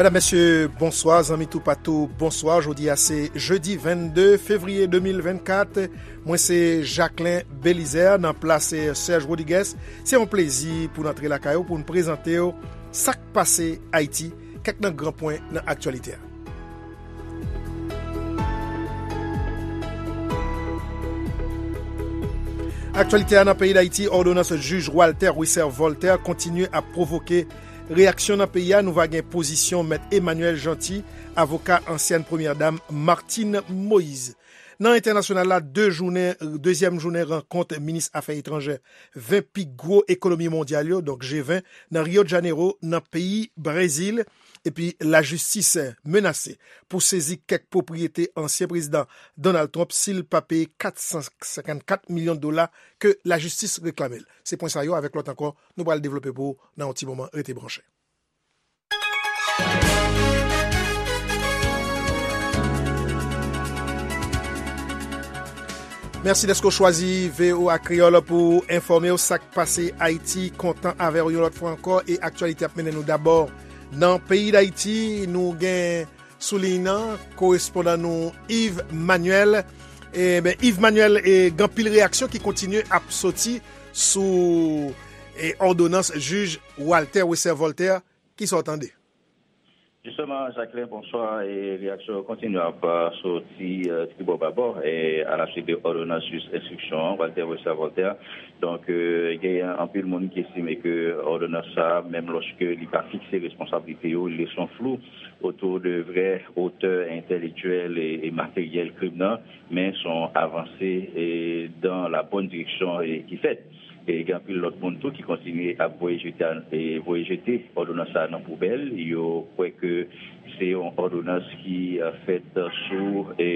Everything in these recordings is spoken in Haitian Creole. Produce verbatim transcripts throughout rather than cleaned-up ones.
Medam, mesye, bonswa. Zanmi toupatou, bonswa. Jodi a se jedi vennde fevriye de mil vennkat. Mwen se Jacquelin Belizaire nan plas Serge Rodriguez. Se yon plezi pou n antre lakay ou pou n prezante w sa k pase Ayiti, kèk nan gran pwen nan aktyalite a. Aktyalite a nan peyi Dayiti, òdonans jij Walter Wesser Voltaire kontinye ap pwovoke reyaksyon nan peyi a. Nou va gen pozisyon Mèt Emmanuel Jeanty, avoka ansyèn premyè dam Martine Moïse. Nan entènasyonal la, de jounen, dezyèm jounen rankont minis afè etranjè ven pi gwo ekonomi mondyal yo, donk G ven, nan Rio de Janeiro, nan peyi Brezil. Epi lajistis menase pou sezi kèk pwopriyete ansyen prezidan Donald Trump si l pa peye kat san senkannkat milyon dola ke lajistis reklame l. Se pwen sa yo avèk lòt ankò nou pral devlope pou ou nan yon ti moman. Rete branche. Mèsi dèske w chwazi V O A Kreyòl pou enfòme w sa k pase Ayiti. Kontan avè w yon lòt fwa ankò e aktyalite ap mennen nou dabò nan peyi Dayiti. Nou gen sou liy nan korespondan nou Yves Manuel. E, ben, Yves Manuel, e, gen anpil reyaksyon ki kontinye ap soti sou, e, òdonans jij Walter Wesser Voltaire. Kisa w tande? Jisteman, Jacquelin, bonswa. E reyaksyon yo kontinye ap, euh, soti, euh, tribò babò, e a la suite de òdonans jij enstriksyon an, Walter Wesser Voltaire. Donk, euh, gen anpil moun ki estime ke òdonans sa a, menm lòske li pa fikse responsablite yo, li lese yon flou otou de vrè otè entèlektyèl e, e materyèl krim nan, men se yon avanse, e, dan la bòn direksyon, e, ki fèt. E gen anpil lòt moun tou ki kontinye ap voye jete, e voye jete òdonans sa a nan poubèl. Yo kwè ke se yon òdonans ki, e, fèt sou, e,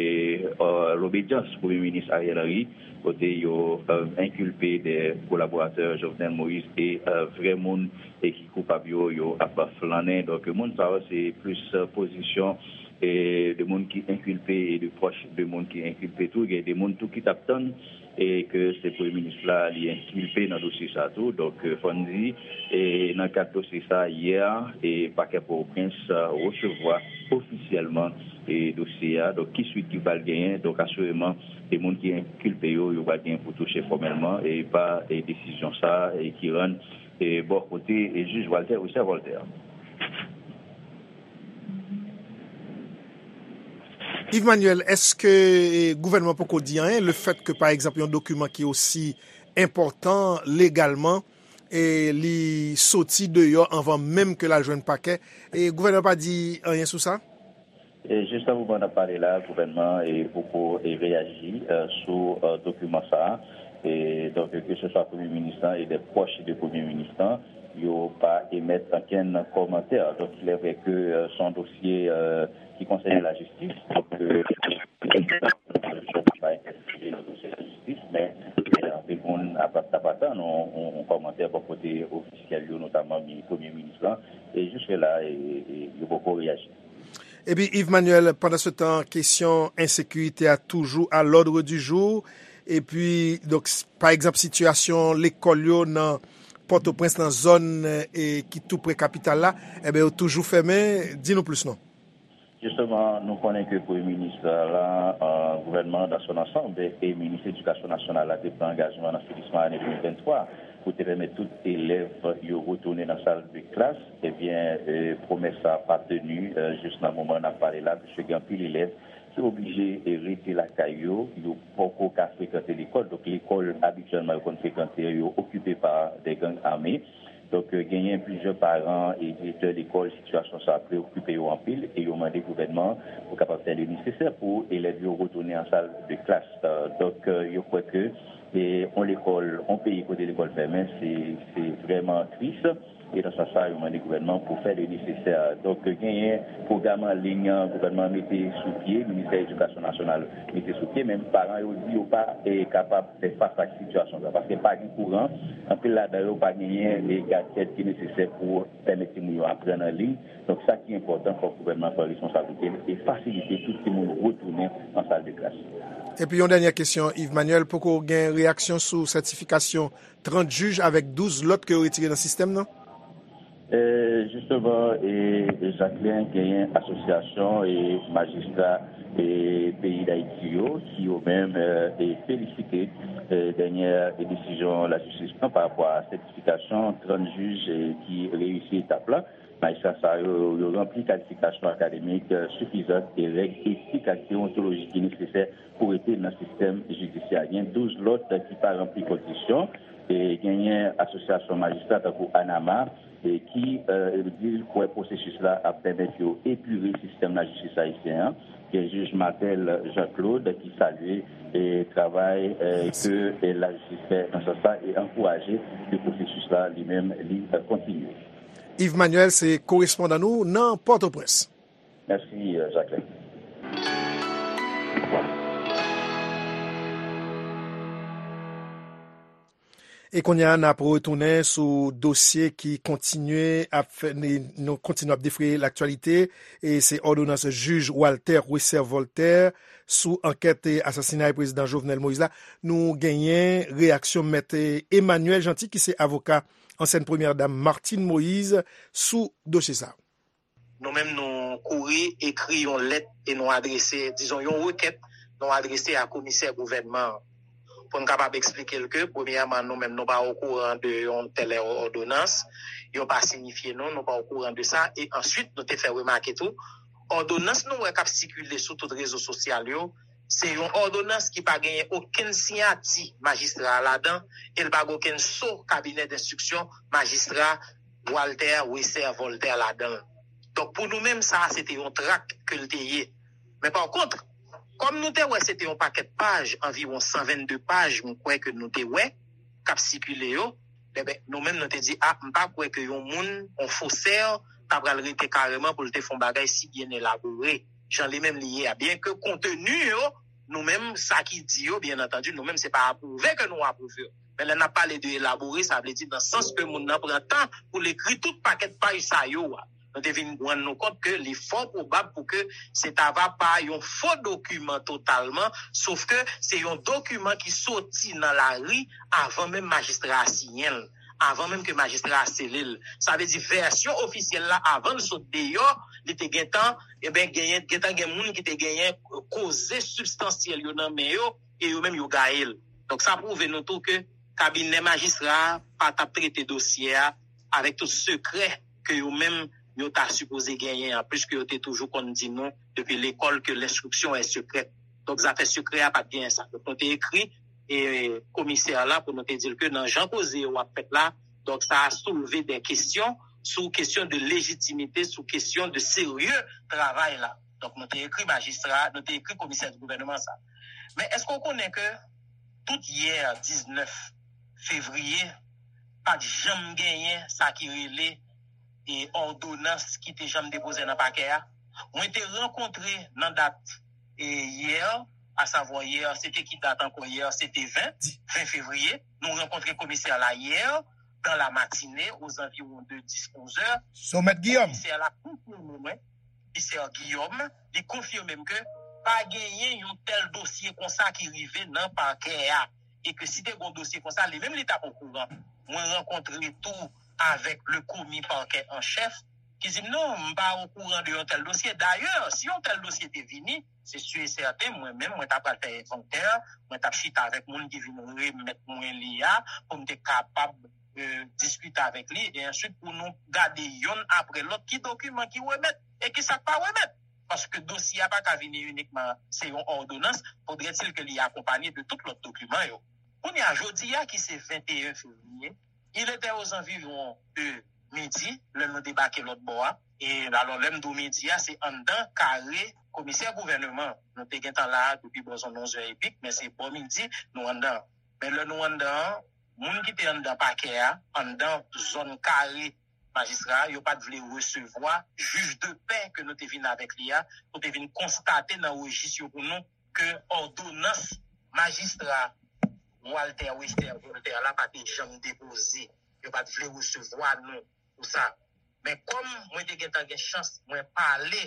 e, lobedyans Premye Minis Ariel Henry, kote yo, e, enkilpe de kolaboratè Jovenel Moïse e, e, vrè moun e ki koupab yo, yo ap flannen. Donk, moun sa yo, se plis, e, pozisyon, e, de moun ki enkilpe e de pwòch de moun ki enkilpe tou. Gen de moun tou ki t ap tann e ke se premye minis la li enkilpe nan dosye sa tou. Donk, e, fò n di, e, nan kad dosye sa, yè, e, pakè Pòtoprens, e, resevwa ofisyèlman, e, dosye a. Donk, ki swit ki pral genyen? Donk, asireman, e moun ki enkilpe yo, yo pral genyen pou touche fòmèlman, e pa, e, desizyon sa, e ki rann, e, bò kote, e, jij Walter Richard Voltaire. Yves Manuel, èske, e, gouvènman poko di anyen, le fèt ke, pa egzanp, yon dokiman ki osi enpòtan legalman, e, li soti deyò anvan menm ke l al jwenn pakè, e, gouvènman pa di anyen sou sa? E jis nan moman n ap pale la, gouvènman, e, poko, e, reyaji, e, sou, e, dokiman sa a. E, donk, ke se swa premye minis lan e de pwòch de premye minis lan, yo pa emèt okenn kòmantè. Donk, il est vrai ke, e, se yon dosye, e, ki konsène lajistis. Donk, e, pa entèfere nan dosye lajistis, men, e, anpil moun ap, ap, ap atann yon, yon, yon kòmantè bò kote ofisyèl yo, notaman mi-, premye minis lan. E jiske la, e, e, yo poko reyaji. Epi, Yves Manuel, pandansetan, kesyon ensekirite a toujou à l'ordre du jour. Epi, donk, s-, pa egzanp, sitiyasyon lekòl yo nan Pòtoprens, nan zòn, e, ki tou pre kapital la, enben, yo toujou fèmen. Di nou plis, non? Jisteman, nou konnen ke premye minis la, e, gouvènman dans son ensemble e minis edikasyon nasyonal la te pran angajman nan finisman ane de mil venntwa pou te pèmèt tout elèv yo retounen nan sal de klas. Ebyen, e, pwomès sa a pa teni, e, jis nan moman n ap pale la, piske gen anpil elèv ki oblije, e, rete lakay yo, yo poko ka frekante lekòl. Donk, lekòl abityèlman yo konn frekante yo, yo okipe pa de gang ame. Donk, e, genyen plizyè paran e direktè lekòl, sitiyasyon sa a preokipe yo anpil e yo mande gouvènman pou kapab fè le nesesè pou elèv yo retounen an sal de klas. E, donk, e, yo kwè ke, e, on lekòl, on peyi kote lekòl fèmen, se, se vrèman tris. E nan sans sa, yo mande gouvènman pou fè le nesesè. Donk, genyen pwogram an liy gouvènman mete sou pye, Ministè Edikasyon Nasyonal mete sou pye, men paran yo di yo pa, e, kapab fè fas ak sitiyasyon sa, paske pa gen kouran, anpil ladan yo pa genyen, e, gadjèt ki nesesè pou pèmèt timoun yo aprann an liy. Donk, sa ki enpòtan, fòk gouvènman pran responsablite l e fasilite tout timoun retounen an sal de klas. Epi yon dènyè kesyon, Yves Manuel, poko gen reyaksyon sou sètifikasyon trant jij avèk douz lòt ke yo retire nan sistèm nan? E, jisteman, e, Jacquelin, genyen asosyasyon e majistra e peyi Dayiti yo ki yo menm e, e felisite e, dènyè e desizyon lajistis pran pa rapò a sètifikasyon trant jij e, ki reyisi etap la. Majistra sa yo, yo ranpli kalifikasyon akademik e, sifizan e règ etik ak deontolojik ki nesesè pou rete nan sistèm jidisyè. Gen douz lòt ki pa ranpli kondisyon. E genyen asosyasyon majistra tankou ANAMA e ki e, di l kwè pwosesis la ap pèmèt yo epire sistèm lajistis ayisyen an. Gen jij Martel Jean Claude ki salye e travay e, ke e, lajistis fè nan sans sa e ankouraje ke pwosesis la li menm li e, kontinye. Yves Manuel se korespondan nou nan Pòtoprens. Mèsi, e, Jacquelin. E kounye a, n ap retounen sou dosye ki kontinye ap fè, nou kontinye ap defriye laktyalite. E se òdonans jij Walter Wesser Voltaire sou ankèt e asasinay prezidan Jovenel Moïse la. Nou genyen reyaksyon mèt e, Emmanuel Jeanty, ki se avoka ansyèn premyè dam Martine Moïse, sou dosye sa. Nou menm, nou kouri ekri yon lèt e nou adrese, dizon, yon rekèt, nou adrese a komisè gouvènman an. Pou n kapab eksplike l ke, premyèman, nou menm, nou pa okouran de yon tèl òdonans, yo pa sinifye nou, nou pa okouran de sa, e answit, nou te fè remake tou, òdonans nou wè k ap sikile sou tout rezo sosyal yo, se yon òdonans ki pa genyen okenn siyati majistra a ladan, e l pa gen okenn so kabinè denstriksyon majistra Walter Wesser Voltaire ladan l. Donk, pou nou menm, sa a, se te yon trak ke l te ye. Men pa kont, kòm nou te wè se te yon pakèt paj, anviwon san vennde paj, m kwè ke nou te wè, k ap sikile yo, enben, nou menm, nou te di, a, m pa kwè ke yon moun, yon fosè, ta pral rete kareman pou l te fè yon bagay si byen elabore, jan li menm li ye a. Byenke konteni yo, nou menm, sa ki di yo, byen antandi, nou menm, se pa apwouve ke nou apwouve yo. Men lè n ap pale de elabore, sa vle di nan sans ke moun nan pran tan pou l ekri tout pakèt paj sa yo a. Nou te vin rann nou kont ke li fò pwobab pou ke se ta va pa yon fo dokiman totalman, sof ke se yon dokiman ki soti nan lari avan menm majistra a siyen l, avan menm ke majistra a sele l. Sa vle di vèsyon ofisyèl la, avan l sot deyò, li te gentan, enben, genyen, gentan gen moun ki te genyen koze sibstansyèl yo nan men yo, e yo menm yo gaye l. Donk, sa pwouve nou tou ke kabinè majistra a pa t ap trete dosye a avèk tout sekrè ke yo menm yo ta sipoze genyen an, pliske yo te toujou konn di nou depi lekòl ke l'instruction est secrète. Donk, zafè sekrè a pa t genyen sa. Donk, nou te ekri e komisè a la pou nou te di l ke nan jan koze yo ap fèt la, donk, sa a soulve de kesyon sou kesyon de lejitimite, sou kesyon de serye travay la. Donk, nou te ekri majistra, nou te ekri komisè di gouvènman sa. Men èske w konnen ke tout yè diznèf fevriye, pa t janm genyen sa ki rele e òdonans ki te janm depoze nan pakè a? Mwen te rankontre nan dat e yè, asavwa yè, se te ki dat ankò yè? Se te ven, ven fevriye. Nou rankontre komisè la yè, dans la matinée, aux environs de dix, onze heures. Somèt Guillaume. Komisè la konfime mwen, komisè Guillaume, li konfime m ke pa genyen yon tèl dosye konsa ki rive nan pakè a. E ke si te gon dosye konsa, li menm li t ap okouran. Mwen rankontre tou avèk le komi parquet en chef, ki di m, "Non, m pa okouran de yon tèl dosye. Dayè, si yon tèl dosye te vini, se si e sèten, mwen menm, mwen ta pral fè envantè, mwen t ap chita avèk moun ki vin remèt mwen li a, pou m te kapab e, diskite avèk li, e answit pou nou gade yonn apre lòt ki dokiman ki remèt e ki sa k pa remèt. Paske dosye a pa ka vini inikman, se yon òdonans, fodrètil ke li akonpanye de tout lòt dokiman yo. Kounye a, jodi a ki se venteyen fevriye, il était aux environs de midi, lè nou debake lòt bò a. E alò, lè m di w midi a, se anndan kare komisè gouvènman. Nou te gentan la a depi bò zòn onz è epi, men se bò midi, nou anndan. Men lè nou anndan an, moun ki te anndan pakè a, anndan zòn kare majistra a, yo pa t vle resevwa jij de pè ke nou te vin avèk li a, pou te vin konstate nan rejis yo pou nou ke òdonans majistra Walter Wester Voltaire la pa te janm depoze. Yo pa t vle resevwa nou pou sa. Men kòm mwen te gentan gen chans, mwen pale,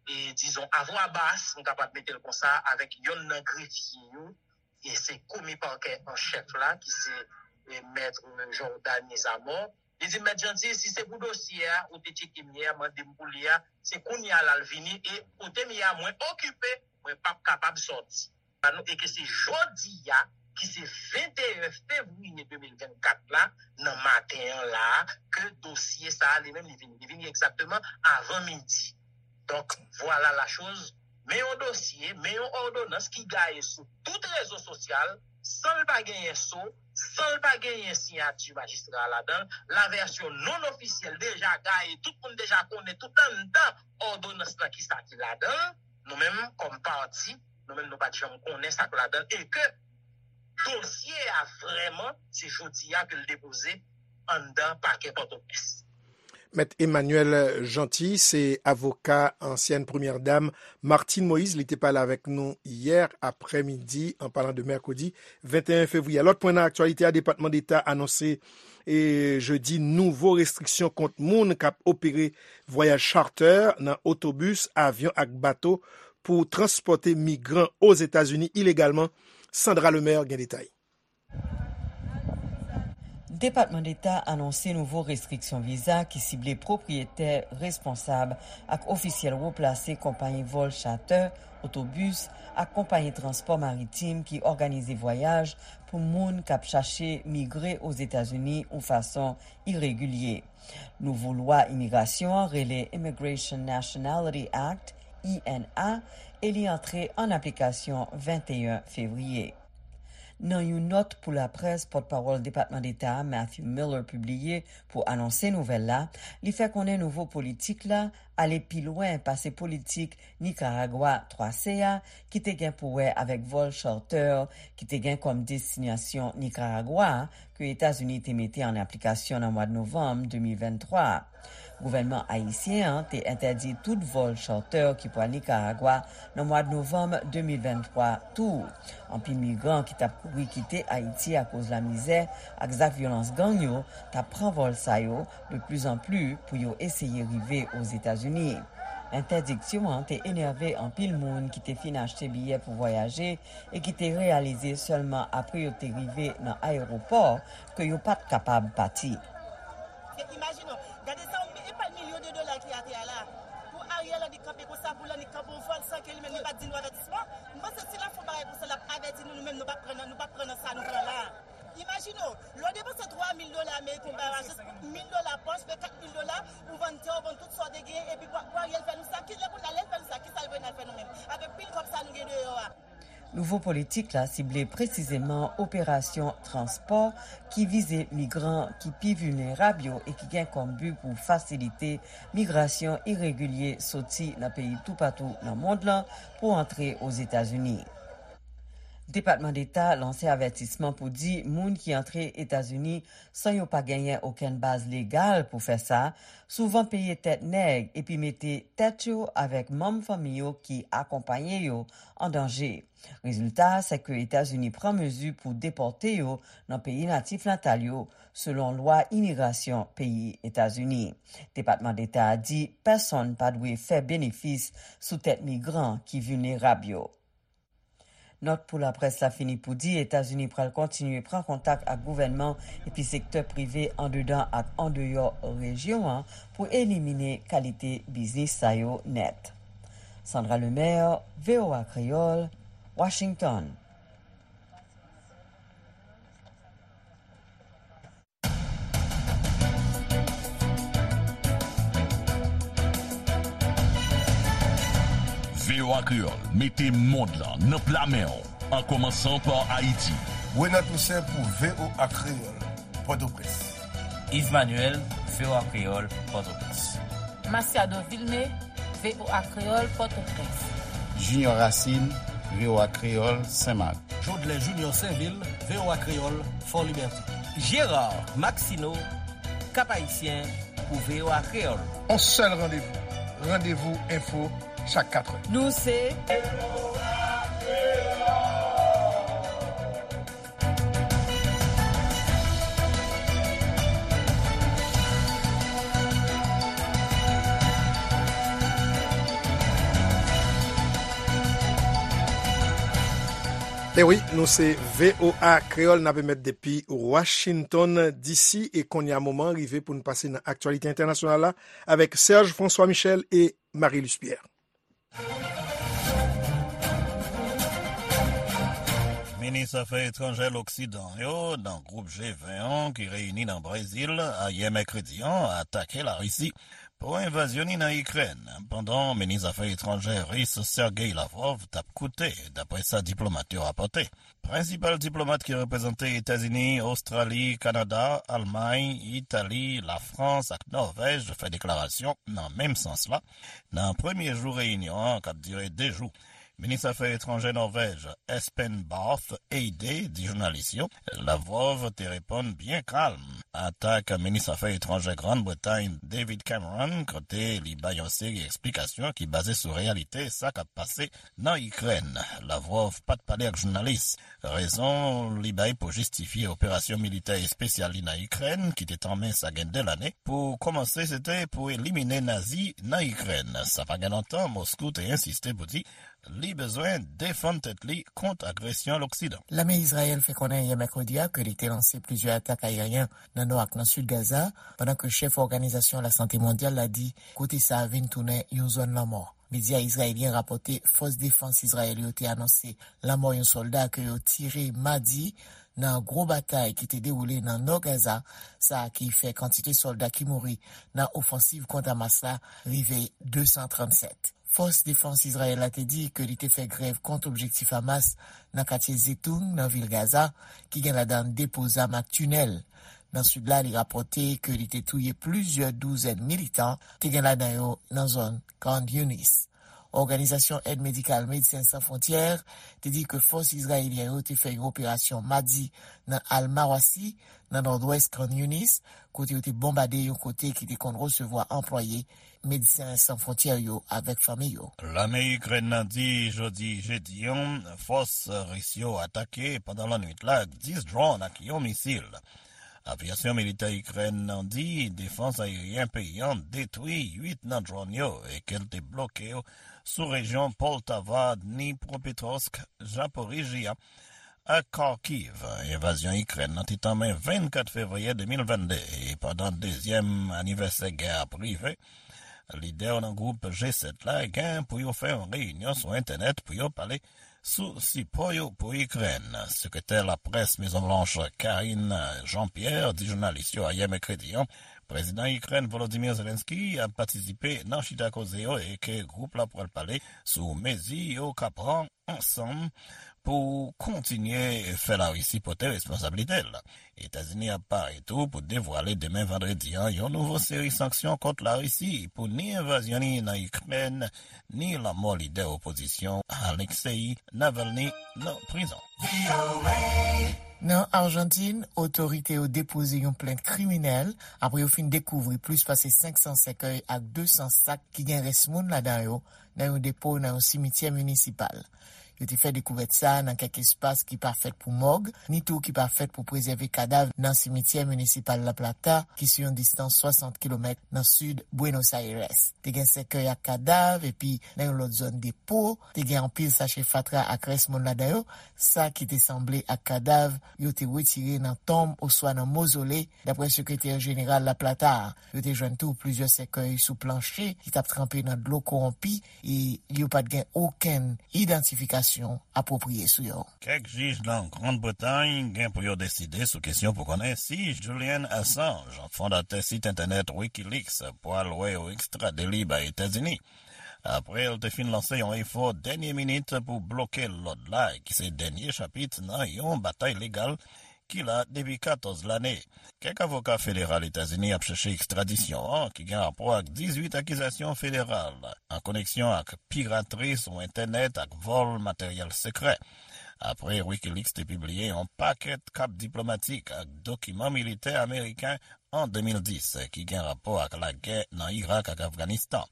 e, dizon, a vwa bas, m kapab mete l konsa, avèk yonn nan grefye yo, e se komi pakè an chèf la, ki se, e, mèt Jordany Zamor, Li di m, "Mèt Janti, si se pou dosye a, ou te tcheke m yè, mande m pou li a, se kounye a l al vini, e kote m ye a, mwen okipe, mwen p ap kapab sòti." E ke se jodi a, ki se venteyen fevriye de mil vennkat la, nan maten an la, ke dosye sa a, li menm, li vini. Li vini egzakteman avan midi. Donk, vwala la choz. Men yon dosye, men yon òdonans ki gaye sou tout rezo sosyal, san l pa genyen so, san l pa genyen siyati majistra a ladan l, lavèsyon non ofisyèl deja gaye, tout moun deja konnen tout anndan òdonans lan kisa ki ladan l, nou menm kòm pati, nou menm nou pa t janm konnen sa k ladan l, e ke dosye a vrèman, se jodi a ke l depoze anndan pakè Pòtoprens. Mèt Emmanuel Jeanty se avoka ansyèn premyè dam Martine Moïse. Li te pale avèk nou yè aprèmidi, an palan de mèkredi venteyen fevriye. Lòt pwen nan aktyalite a, Depatman Deta anonse e jedi nouvo restriksyon kont moun k ap opere vwayaj charter nan otobis, avyon ak bato pou transpòte migran Ozetazini ilegalman. Sandra Lemaire gen detay. Depatman Deta anonse nouvo restriksyon viza ki sible pwopriyetè, responsab ak ofisyèl wo plase konpayi vòl chatè, otobis ak konpayi transpò maritim ki òganize vwayaj pou moun k ap chache migre Ozetazini yon fason iregilye. Nouvo lwa imigrasyon an rele Immigration Nationality Act, I N A, e li antre an aplikasyon venteyen fevriye. Nan yon nòt pou laprès, pòtpawòl Depatman Deta a, Matthew Miller, pibliye pou anonse nouvèl la, li fè konnen nouvo politik la ale pi lwen pase politik Nikaragwa twa C a, ki te gen pou wè avèk vòl charter ki te gen kòm destinasyon Nikaragwa, ke Etazini te mete an aplikasyon nan mwa novanm de mil venntwa. Gouvènman ayisyen an te entèdi tout vòl charter ki pral Nikaragwa nan mwa novanm de mil venntwa tou. Anpil migran ki t ap kouri kite Ayiti akoz lamizè ak zak vyolans gang yo t ap pran vòl sa yo de pli zan pli pou yo eseye rive Ozetazini. Entèdiksyon an te enève anpil moun ki te fin achte biyè pou vwayaje e ki te reyalize sèlman apre yo te rive nan ayewopò ke yo pa t kapab pati. Se, imajine w, gade sa, yon mi-, e pa milyon de dola ki atè a la. Pou Ariel Henry kanpe konsa, pou l annik kanpe yon vòl san ke li menm li pa t di nou avètisman. M panse si l ap fè yon bagay konsa, l ap avèti nou, nou menm nou p ap pran nan, nou p ap pran nan sa nou pran la. Imajine w, lè w depanse twa mil dola ameriken, w bay jis mil dola pòch, fè kat mil dola, ou vann tè, ou vann tout sa w te genyen, epi pou, pou Ariel fè nou sa, kilè kounye a lè l fè nou sa, kisa l vle n al fè nou menm? Avèk pil kòb sa nou gen deyò a. Nouvo politik la sible presizeman operasyon transpò ki vize migran ki pi vilnerab yo e ki gen kòm bi pou fasilite migrasyon iregilye soti nan peyi toupatou nan mond lan pou antre Ozetazini. Depatman Deta lanse avètisman pou di moun ki antre Etazini san yo pa genyen okenn baz legal pou fè sa, souvan peye tèt nèg epi mete tèt yo avèk manm fanmi yo ki akonpaye yo an danje. Rezilta a, se ke Etazini pran mezi pou depòte yo nan peyi natif natal yo, selon lwa imigrasyon peyi Etazini. Depatman Deta a di pèsonn pa dwe fè benefis sou tèt migran ki vilnerab yo. Nòt pou laprès la fini pou di Etazini pral kontinye pran kontak ak gouvènman epi sektè prive andedan ak andeyò rejyon an pou elimine kalite biznis sa yo nèt. Sandra Lemaire, V O A Kreyòl, Washington. V O A Kreyòl mete mond lan nan pla men w, an kòmansan pa Ayiti. Renan Toussaint pou V O A Kreyòl, Pòtoprens. Yves Manuel, V O A Kreyòl, Pòtoprens. Masiado Vilmé, V O A Kreyòl, Pòtoprens. Junior Racine, V O A Kreyòl, Senmak. Jodlè Junior Sainvil, V O A Kreyòl, Fòlibète. Gérard Maxineau, Cap-Haïtien, pou V O A Kreyòl. On sèl randevou, Randevou Enfo, chak katrè. Nou se E wi, nou se V O A Kreyòl, n ap emèt depi Washington D C, e kounye a moman rive pou n pase nan aktyalite entènasyonal la avèk Serge François Michel e Marie-Luce Pierre. Minis afè etranjè Loksidan yo nan gwoup G ven an ki reyini nan Brezil ayè mèkredi an atake Larisi pou envazyon li nan Ikrèn, pandan minis afè etranjè ris Sergei Lavrov t ap koute, dapre sa diplomat yo rapòte. Prensipal diplomat ki reprezante Etazini, Ostrali, Kanada, Almay, Itali, Lafrans ak Nòvèj fè deklarasyon nan menm sans la, nan premye jou reyinyon an k ap dire de jou. Minis afè etranjè Nòvèj, Espen Barth Eide, di jounalis yo, Lavrov te reponn byen kalm atak minis afè etranjè Grann Bretay, David Cameron, kote li bay yon seri eksplikasyon ki baze sou reyalite sa k ap pase nan Ikrèn. Lavrov pa t pale ak jounalis. Rezon li bay pou jistifye operasyon militè espesyal li nan Ikrèn, ki te tanmen sa gen de lane, pou kòmanse se te pou elimine Nazi nan Ikrèn. Sa pa gen lontan, Moskou te ensiste pou di li bezwen defann tèt li kont agresyon Loksidan. Lame Izrayèl fè konnen yè mèkredi a ke li te lanse plizyè atak ayeryen nan nò ak nan sid Gaza, pandan ke chèf Òganizasyon Lasante Mondyal la di kote sa a vin tounen yon zòn lanmò. Medya izrayelyen rapòte fòs defans Izrayèl yo te anonse lanmò yon sòlda ke yo tire madi nan gwo batay ki te dewoule nan nò Gaza, sa ki fè kantite sòlda ki mouri nan ofansiv kont Hamas la rive de san trannsèt. Fòs defans Izrayèl la te di ke li te fè grèv kont objektif Hamas nan katye Zetoun, nan vil Gaza, ki gen ladan depo zam ak tinèl. Nan sid la, li rapòte ke li te touye plizyè douzèn militan, te gen ladan yo nan zòn Khan Younis. Òganizasyon Èd Medikal Medsen San Fwontyè te di ke fòs izrayelyen yo te fè yon operasyon madi nan Al Mawasi, nan nòdwès Khan Younis, kote yo te bonbade yon kote ki te konn resevwa anplwaye Medsen San Fwontyè yo avèk fanmi yo. Lame Ikrèn nan di jodi jedi an, fòs ris yo atake pandan lannwit la ak dis dwòn ak yon misil. Avyasyon militè Ikrèn nan di defans ayeryen peyi an detwi uit nan dwòn yo e ke l te bloke yo sou rejyon Poltava, Dnipropetrovsk, Zaporizhzhia ak Kharkiv. Envazyon Ikrèn nan te tanmen vennkat fevriye de mil vennde, e pandan dezyèm anivèsè gè a ap rive, lidè yo nan gwoup G sèt la gen pou yo fè yon reyinyon sou entènèt pou yo pale sou sipò yo pou Ikrèn. Sekretè laprès Mezon Blanch, Karine Jean-Pierre, di jounalis yo ayè mèkredi an, prezidan Ikrèn Volodymyr Zelensky ap patisipe nan chita koze yo e ke gwoup la pral pale sou mezi yo ka pran ansanm pou kontinye fè Larisi pote responsablite l. Etazini ap pare tou pou devwale demen vandredi an yon nouvo seri sanksyon kont Larisi pou ni envazyon li nan Ikrèn, ni lanmò lidè opozisyon Alexei Navalny nan prizon. Nan Ajantin, otorite yo depoze yon plent kriminèl apre yo fin dekouvri plis pase senk san sèkèy ak de san sak ki gen rès moun ladan yo nan yon depo nan yon simityè minisipal. Yo te fè dekouvèt sa a nan kèk espas ki pa fèt pou mòg, ni tou ki pa fèt pou prezève kadav nan simityè minisipal La Plata, ki sou yon distans swasant kilomèt nan sid Buenos Aires. Te gen sèkèy ak kadav, epi nan yon lòt zòn depo, te gen anpil sachè fatra ak rès moun ladan yo, sa ki te sanble ak kadav yo te retire nan tonm oswa nan mozole, dapre sekretè jeneral La Plata a. Yo te jwenn tou plizyè sèkèy sou planche ki t ap tranpe nan dlo kowonpi e yo pa t gen okenn idantifikasyon apwopriye sou yo. Kèk jij nan Grann Bretay gen pou yo deside sou kesyon pou konnen si Julian Assange, fondatè sit entènèt Wikileaks, pral wè yo ekstrade li bay Etazini. Apre l te fin lanse yon efò dènye minit pou bloke lòd la, ki se dènye chapit nan yon batay legal ki la depi katòz lane. Kèk avoka federal Etazini ap chèche ekstradisyon an, ki gen rapò ak dizuit akizasyon federal an koneksyon ak piratri sou entènèt ak vòl materyèl sekrè. Apre Wikileaks te pibliye yon pakèt kat diplomatik ak dokiman militè ameriken an de mil dis, ki gen rapò ak lagè nan Irak ak Afganistan.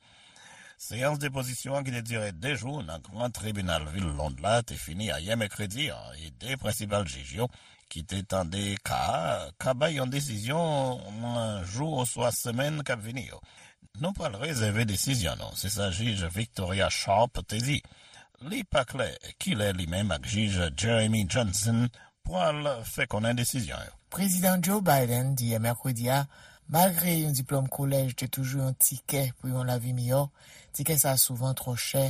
Seyans depozisyon an ki te dire de jou nan Gran Tribinal vil Lond la te fini ayè mèkredi an, e de prensipal jij yo ki te tande ka a ka bay yon desizyon nan jou oswa semèn k ap vini yo. Nou pral rezève desizyon nou, se sa jij Victoria Sharp te di. Li pa klè kilè li menm ak jij Jeremy Johnson pral fè konnen desizyon yo. Prezidan Joe Biden di yè mèkredi a, malgre yon diplòm kolèj te toujou yon tikè pou yon lavi miyò, tikè sa a souvan twò chè,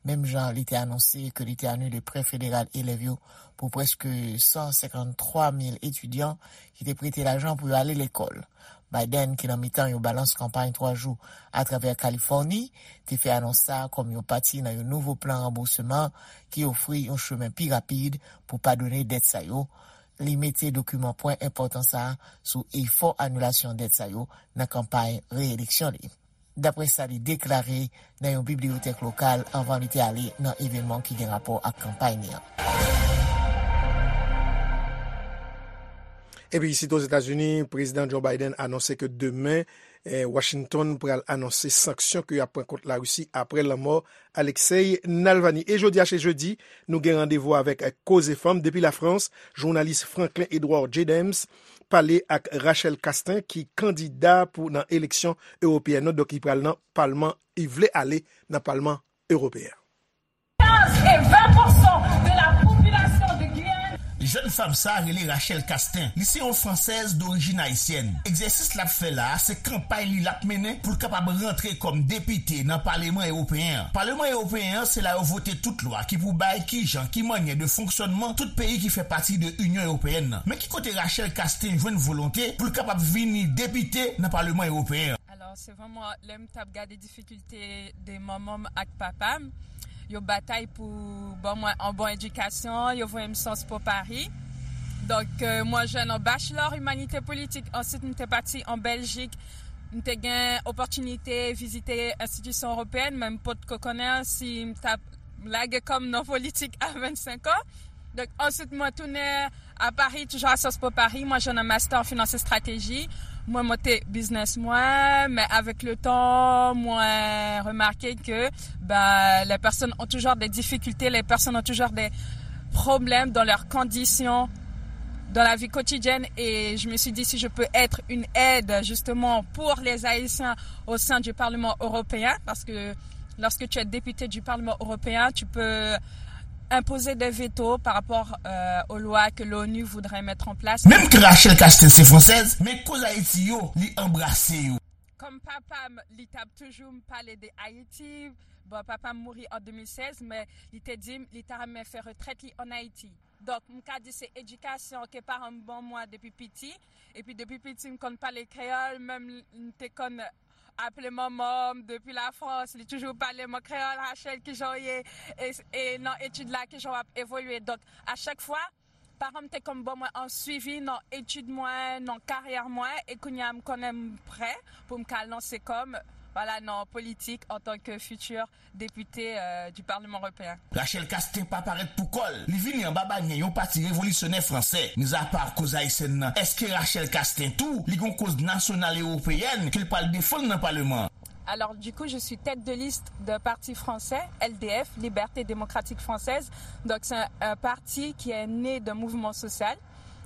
menm jan li te anonse ke li te anile prè federal elèv yo pou prèske san senkann twa mil etidyan ki te prete lajan pou yo ale lekòl. Biden, ki nan mitan yon balans kanpay twa jou atravè Kalifòni, te fè anons sa a kòm yon pati nan yon nouvo plan ranbousman ki ofri yon chemen pi rapid pou padone dèt sa yo. Li mete dokiman pwen enpòtan sa a sou efò anilasyon dèt sa yo nan kanpay reyeleksyon li, dapre sa li deklare nan yon bibliyotèk lokal anvan li te ale nan evènman ki gen rapò ak kanpay li an. Epi isit Ozetazini, Prezidan Joe Biden anonse ke demen, eh, Washington pral anonse sanksyon ke y ap pran kont Larisi apre lanmò Alexei Navalny. E jodi a, se jedi, nou gen randevou avèk, eh, Koze Fanm depi Lafrans, jounalis Franklin Edouard Jadems pale ak Rachel Castin, ki kandida pou nan eleksyon ewopeyèn nan, donk li pral nan palman, li vle ale nan palman ewopeyen. Quinze et vingt pour cent de la population de Guyane. Jèn fanm sa a rele Rachel Castin. Li se yon fransèz dorijin ayisyèn. Egzèsis l ap fè la a, se kanpay li l ap mennen pou l kapab rantre kòm depite nan Paleman Ewopeyen an. Paleman Ewopeyen an, se la yo vote tout lwa ki pou bay kijan, ki mannyè de fonksyònman tout peyi ki fè pati de Inyon Ewopeyèn nan. Men ki kote Rachel Castin jwenn volonte pou l kapab vini depite nan Paleman Ewopeyen an? Alò, se vrèman lè m t ap gade difikilte de manman m ak papa m, yo batay pou ban mwen an bon edikasyon, yo voye m Sciences Po Paris. Donk, euh, mwen jwenn an bachelor imanite politik. Answit, m te pati an Bèljik. M te gen opòtinite vizite enstitisyon ewopeyèn, men m potko konnen si m t ap lage kò m nan politik a vennsenk an. Donk, answit, mwen tounen a Paris, toujours à Sciences Po Paris. Moi, j'ai un master en finance et stratégie. Mwen monte biznis mwen, men avèk letan, mwen remake ke, ben, les personnes ont toujours des difficultés, les personnes ont toujours des problèmes dans leurs conditions, dans la vie quotidienne. Et je me suis dit, si je peux être une aide, justement, pour les Haïtiens au sein du Parlement européen, parce que lorsque tu es député du Parlement européen, tu peux imposer des vétos par rapport, euh, aux lois que l'ONU voudrait mettre en place. Menm ke Rachel Castin se fransèz, men koz Ayiti yo, li anbrase yo. Kòm papa m, li t ap toujou m pale de Ayiti. Bon, papa m mouri an de mil sèz, men li te di m li ta renmen fè retrèt li an Ayiti. Donk, m ka di se edikasyon ke paran m ban mwen depi piti. Epi depi piti, m konn pale kreyòl, menm m te konn aple manman m depi Lafrans, li toujou pale mwen kreyòl, Rachel, kijan w ye? E, e nan etid la, kijan w ap evolye? Donk, a chak fwa, paran m te konn ban mwen an swivi nan etid mwen, nan karyè mwen, e kounye a m konnen m prè pou m ka lanse kò m, vwala, nan politik antanke fitir depite, euh, du Parlement européen. Rachel Castin pa parèt pou kò l. Li vini anba banyè yon pati revolisyonè fransè. Mizapa koz ayisyèn nan, èske Rachel Castin tou, li gon koz nasyonal ewopeyèn ke l pral defann nan paleman an? Alors, du coup, je suis tête de liste d'un parti français, L D F, Liberté Démocratique Française. Donc, c'est un, un parti qui est né d'un mouvement social,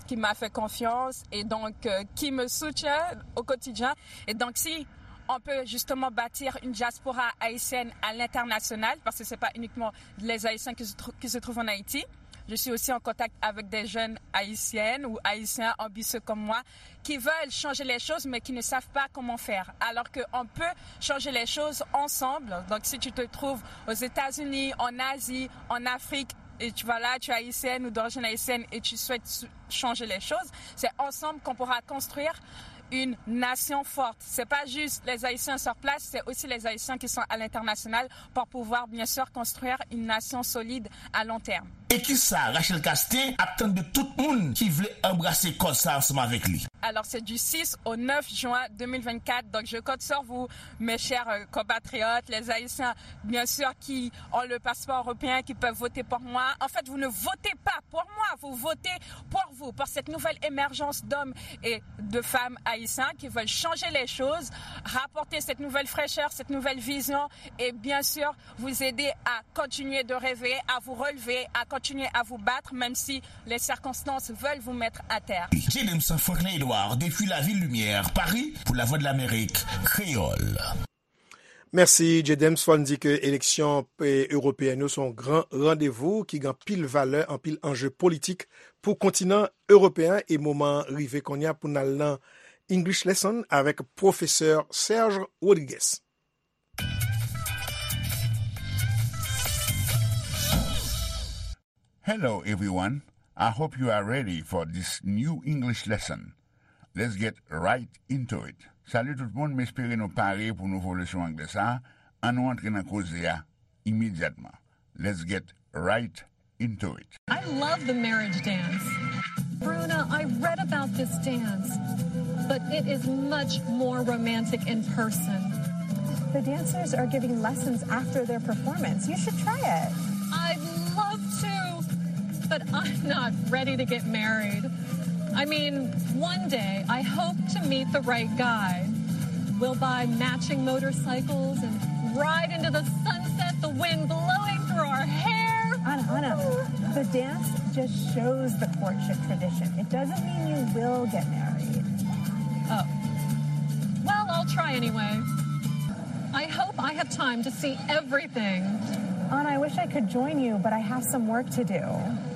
qui m'a fait confiance et donc, euh, qui me soutient au quotidien. Et donc, si on peut justement bâtir une diaspora haïtienne à l'international, parce que c'est pas uniquement les Haïtiens qui se trou-, qui se trouvent en Haïti. Je suis aussi en contact avec des jeunes haïtiennes ou haïtiens ambitieux comme moi qui veulent changer les choses mais qui ne savent pas comment faire. Alors qu'on peut changer les choses ensemble. Donc si tu te trouves aux États-Unis, en Asie, en Afrique, et tu vas là, tu es haïtienne ou d'origine haïtienne et tu souhaites su-, changer les choses, c'est ensemble qu'on pourra construire une nation forte. C'est pas juste les Haïtiens sur place, c'est aussi les Haïtiens qui sont à l'international pour pouvoir, bien sûr, construire une nation solide à long terme. E kisa Rachel Castin ap tann de tout moun ki vle anbrase kòz sa ansanm avèk li? Alors, c'est du six au neuf juin deux mille vingt-quatre, donc je compte sur vous, mes chers, euh, compatriotes, les Haïtiens, bien sûr, qui ont le passeport européen, qui peuvent voter pour moi. En fait, vous ne votez pas pour moi, vous votez pour vous, pour cette nouvelle émergence d'hommes et de femmes haïtiens qui veulent changer les choses, rapporter cette nouvelle fraîcheur, cette nouvelle vision et bien sûr vous aider à continuer de rêver, à vous relever, à continuer à vous battre, même si les circonstances veulent vous mettre à terre. Jadems Franklin Edouard, depuis la Ville Lumière, Paris, pour la Voix de l'Amérique, Créole. Mèsi, J Dems. Fò n di ke eleksyon, e, ewopeyèn yo se yon gran randevou ki gen anpil valè, anpil anje politik pou kontinan ewopeyèn e moman an rive kounye a pou n al nan English Lesson avèk pwofesè Serge Rodriguez. Hello, everyone. I hope you are ready for this new English lesson. Let's get right into it. Salut tout moun, m espere nou pare pou nouvo leson anglè sa a. Ann nou antre nan koze a imedyatman. Let's get right into it. I love the marriage dance. Bruna, I read about this dance, but it is much more romantic in person. The dancers are giving lessons after their performance. You should try it. I'd love to, but I'm not ready to get married. I mean, one day I hope to meet the right guy. We'll buy matching motorcycles and ride into the sunset, the wind blowing through our hair. Anna, Anna, the dance just shows the courtship tradition. It doesn't mean you will get married. Oh. Well, I'll try anyway. I hope I have time to see everything. Anna, I wish I could join you, but I have some work to do.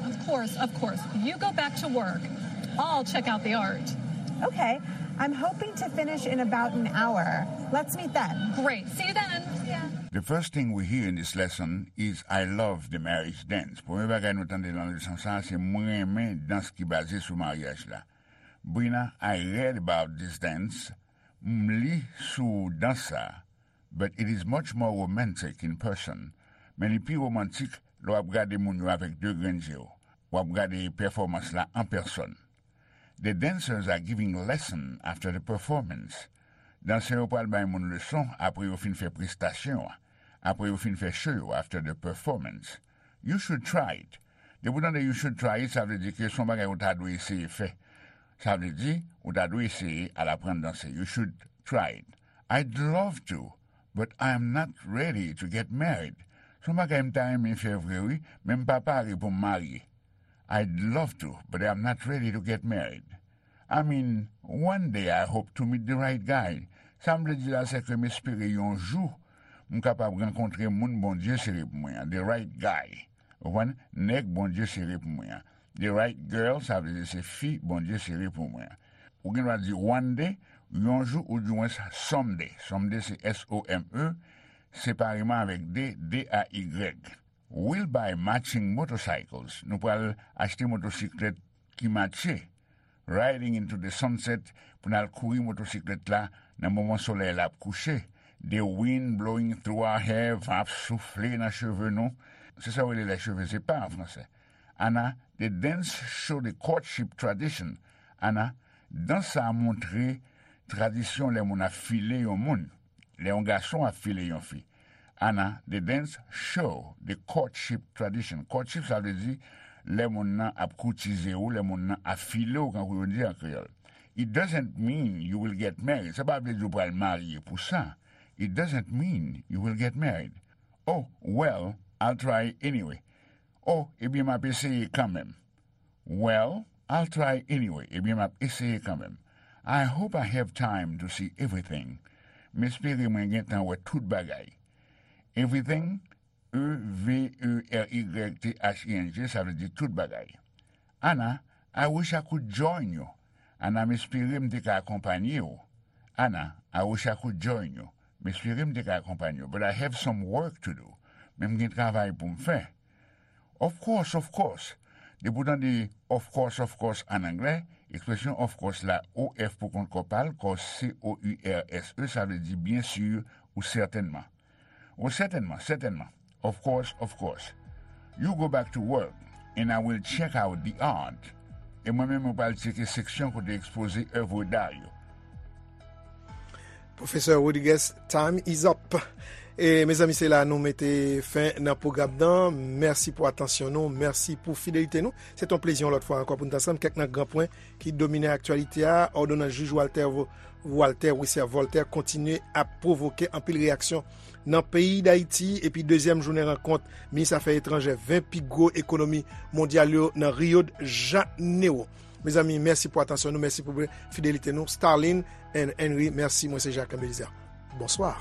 Of course, of course. You go back to work. I'll check out the art. Okay. I'm hoping to finish in about an hour. Let's meet then. Great. See you then. Yeah. The first thing we hear in this lesson is "I love the marriage dance." Premye bagay nou tande nan leson sa a, se "Mwen renmen dans ki baze sou maryaj la." Brina, I read about this dance. M li sou dans sa a. But it is much more romantic in person. Men li pi womantik lè w ap gade moun yo avèk de grenn je w. W ap gade pèfòmans la an pèsòn. The dancers are giving lesson after the performance. Dansè yo pral bay moun leson apre yo fin fè prestasyon an, apre yo fin fè cho yo, after the performance. You should try it. Depi w tande "you should try it", sa vle di ke se yon bagay ou ta dwe eseye fè. Sa vle di, ou ta dwe eseye al aprann danse. You should try it. I'd love to, but I am not ready to get married. Se yon bagay m ta renmen fè vre wi, men m pa pare pou m marye. I'd love to, but I am not ready to get married. I mean, one day I hope to meet the right guy. Sa m vle di la, se ke m espere yon jou m kapab rankontre moun Bondye sere pou mwen an, the right guy. Ou konprann? Nèg Bondye sere pou mwen an. The right girl, sa vle di se fi Bondye sere pou mwen an. Ou gen dwa di one day, yon jou, ou di mwen someday. Someday se S O M E, separeman avèk D, D A Y. We'll buy matching motorcycles. Nou pral achte motosiklèt ki matche. Riding into the sunset, pou n al kouri motosiklèt la nan moman solèy la ap kouche. The wind blowing through our hair, van ap soufle nan cheve nou. Se sa yo rele les cheveux épars an fransè. Anna, the dance show the courtship tradition. Anna, dans sa a montre tradisyon lè moun ap file yon moun, lè yon gason ap file yon fi. Anna, the dance show the courtship tradition. Courtship, sa vle di lè moun nan ap koutize ou, lè moun nan ap file ou, kankou yo di an kreyòl. It doesn't mean you will get married. Sa pa vle di w pral marye pou sa. It doesn't mean you will get married. Oh, well, I'll try anyway. Oh, ebyen, m ap eseye kanmenm. Well, I'll try anyway. Ebyen, m ap eseye kanmenm. I hope I have time to see everything. M espere mwen gen tan wè tout bagay. Everything, E V E R Y T H I N G, sa vle di tout bagay. Anna, I wish I could join you. Anna, m espere m te ka akonpanye w. Anna, I wish I could join you. M espere m te ka akonpanye w. But I have some work to do. Men m gen travay pou m fè. Of course, of course. Depi w tande of course, of course an anglè, ekspresyon of course la, O F pou kont kò pa l, course, C O U R S E, sa vle di byen si ou sètènman. O, sètènman, sètènman. Of course, of course. You go back to work, and I will check out the art. E mwen menm, mwen pral tcheke seksyon kote ekspoze èv da yo. Pwofesè Rodriguez, time is up. E, mezanmi, se la nou mete fen nan pwogram nan. Mèsi pou atansyon nou, mèsi pou fidelite nou. Se t on plezi yon lòt fwa ankò pou n t ansanm. Kèk nan gran pwen ki domine aktyalite a, òdonans jij Walter Vo-, Walter Wissaire Voltaire kontinye ap pwovoke anpil reyaksyon nan peyi Dayiti, epi dezyèm jounen rankont minis afè etranjè ven pi gwo ekonomi mondyal yo nan Rio de Janeiro. Mezanmi, mèsi pou atansyon nou, mèsi pou fidelite nou. Starlin and Henry, mèsi, mwen se Jacques Belizaire. Bonswa.